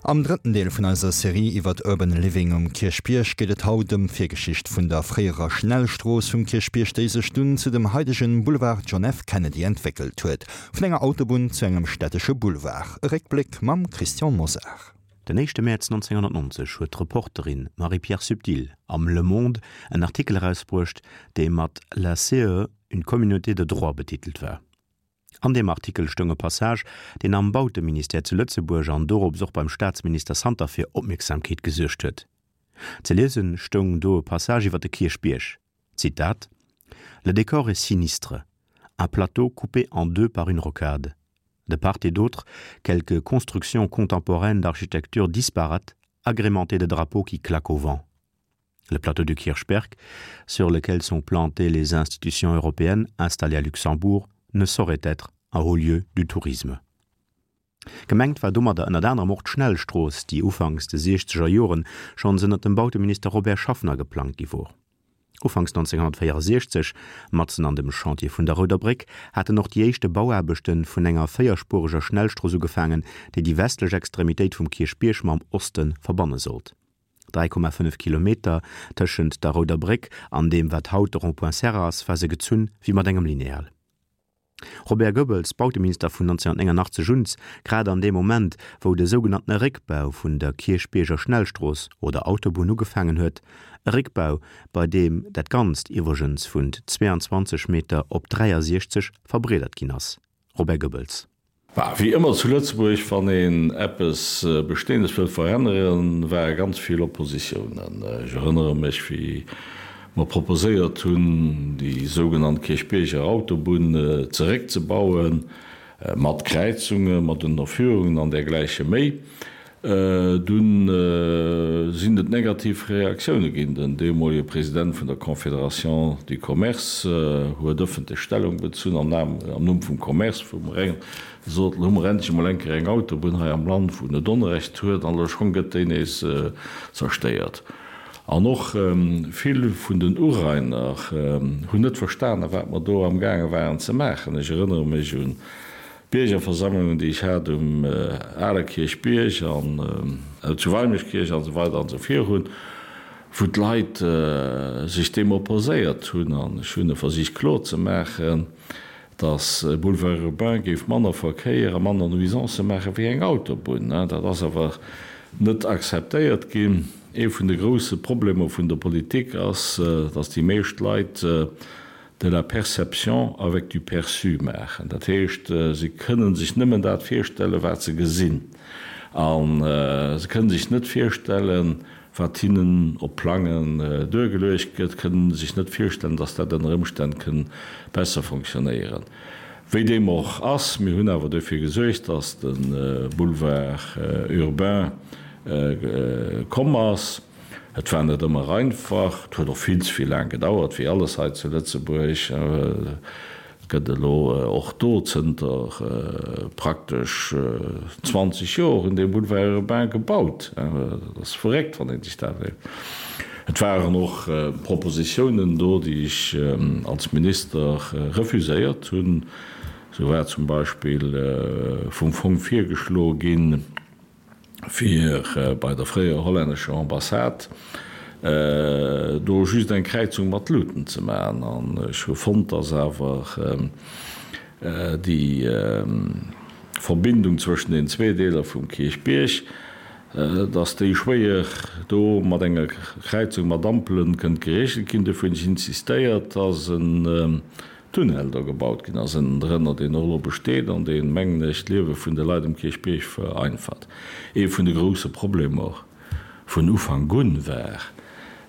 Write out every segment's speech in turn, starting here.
Am drëtten Deel vun eiser Serie iwwert Urban Living um Kierchbierg geet et haut ëm d'Virgeschicht vun der fréierer Schnellstrooss vum Kierchbierg, déi sech dunn zu dem haidegen Boulevard John F. Kennedy entwéckelt huet. Vun enger Autobunn zu engem stättesche Boulevard. E Réckbléck mam Christian Mosar. Den éischte Mäerz 1990 huet d'Reporterin Marie-Pierre Subtil am Le Monde en Artikel erausbruecht, dee mat La CE, une communauté de droit betitelt war. An deem Artikel stoung e Passage, deen am Bauteministère zu Lëtzebuerg an dorops och beim Staatsminister Santer fir Opmierksamkeet gesuergt huet. Ze liese stoung do e Passage iwwer de Kierchbierg, Zitat, Le décor est sinistre, un plateau coupé en deux par une rocade. De part et d'autre, quelques constructions contemporaines d'architecture disparate, agrémentées de drapeaux qui claquent au vent. Le plateau du Kirchberg, sur lequel sont plantées les institutions européennes installées à Luxembourg, ne saurait être un haut lieu du tourisme. Gemengt war domadder ënnert anerem och d'Schnellstrooss, déi ufanks de siechzeger Joren schonns ënnert dem Bauteminister Robert Schaffner geplangt gi wor. Ufanks 1964, matzen an dem Chantier vun der Rouder Bréck, haten och déi éischte Bauaarbechte vun enger véierspureger Schnellstrooss ugefaangen, déi déi westlech Extremitéit vum Kierchbierg mam Oste verbanne sollt. 3,5 Kilometer tëschent der Rouder Bréck an deem wat haut de Rond-point Serre ass, war se gezunn wéi mat engem Lineal. Robert Goebbels, Bauteminister vun 1989 un, grad an deem Moment, wou de sougenanntene Réckbau vun der Kierchbierger Schnellstrooss oder Autobunn ugefaangen huet, e Réckbau, bei deem dat Ganzt iwwregens vun 22 Meter op 63 verbreedert ginn ass. Robert Goebbels. Bah, wéi ëmmer zu Lëtzebuerg, wann een eppes Bestehendes wëllt veränneren, ware ganz vill Oppositiounen. Ech erënnere mech, wéi mer proposéiert hunn, déi sougenannt Kierchbierger Autobunn zeréckzebauen, mat Kräizungen, mat Ënnerführungen an dergläiche méi. Dunn sinn et negativ Reaktioune ginn. Den deemolege President vun der Confédération du Commerce huet ëffentlech Stellung bezunn am Numm vum Commerce, wou mer gesot hunn, elo hu mer endlech emol eng Kéier eng Autobunn hei am Land, wou net Onrecht huet, an elo schonn gëtt déi nees zerstéiert. An och vill vun den Urainer hunn net verstanen, wat mer do amgaange waren ze maachen. Ech erënnere mech un Biergerversammlungen, déi ech hat um ale Kierchbierg an zu Weimeschkierch an esou weider an esou virun, wou d'Leit sech deem opposéiert hunn. An ech hunn e versicht kloer ze maachen, datt e Boulevard urbain géif manner Verkéier a manner Nuisancë maache wéi eng Autobunn. Dat ass awer net akzeptéiert ginn. Ee vun de grousse Problemer vun der Politik ass, datt déi meescht Leit de la perception avec du perçu maachen. Dat heescht, se kënnen sech nëmmen dat virstellen, wat se gesinn. A se kënnen sech net virstellen, wat hinnen op Plangen duergeluecht gëtt, kënnen sech net virstellen, dass dat ënner Ëmstänn kënn besser fonctionnéieren. Wéi deem och ass, mir hunn awer dofir gesuergt, dass de Boulevard urbain komm ass. Et war net ëmmer einfach, et huet och vill ze vill laang gedauert, wéi alles hei zu Lëtzebuerg. Et gëtt elo och do zënter praktesch 20 Joer un deem Boulevard urbain gebaut. Dat ass verréckt, wann ee sech dat iwwerleet. Et waren och Propositiounen do, déi ech als Minister refuséiert hunn. Esou war zum Beispill vum Fong virgeschloe ginn, fir bei der fréierer hollännescher Ambassade do just eng Kräizung mat Luuten ze maachen. An ech hu fonnt, dass awer déi Verbindung zwëschen den zwee Deeler vum Kierchbierg, dass déi schwéier do mat enger Kräizung mat Ampelen kënnt geregelt ginn. Dofir hunn ech insistéiert, dass en Tunnel do gebaut ginn ass, ënnendrënner, deen och elo besteet an deen, mengen ech, d'Liewe vun de Leit um Kierchbierg vereinfacht. Ee vun de grousse Problemer vun Ufank un war,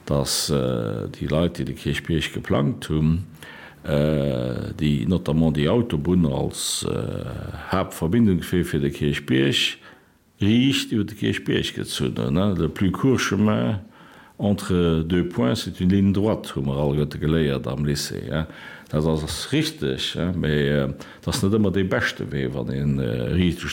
dass déi Leit, déi de Kierchbierg geplangt hunn, déi notamment déi Autobunn als Haaptverbindungswee fir de Kierchbierg, Riicht iwwer de Kierchbierg gezunn hunn. Le plus court chemin entre deux points, c'est une ligne droite, hu mer alleguerte geléiert am Lycée. Dat ass richteg, mä et ass net ëmmer dee beschte Wee, wann ee riicht.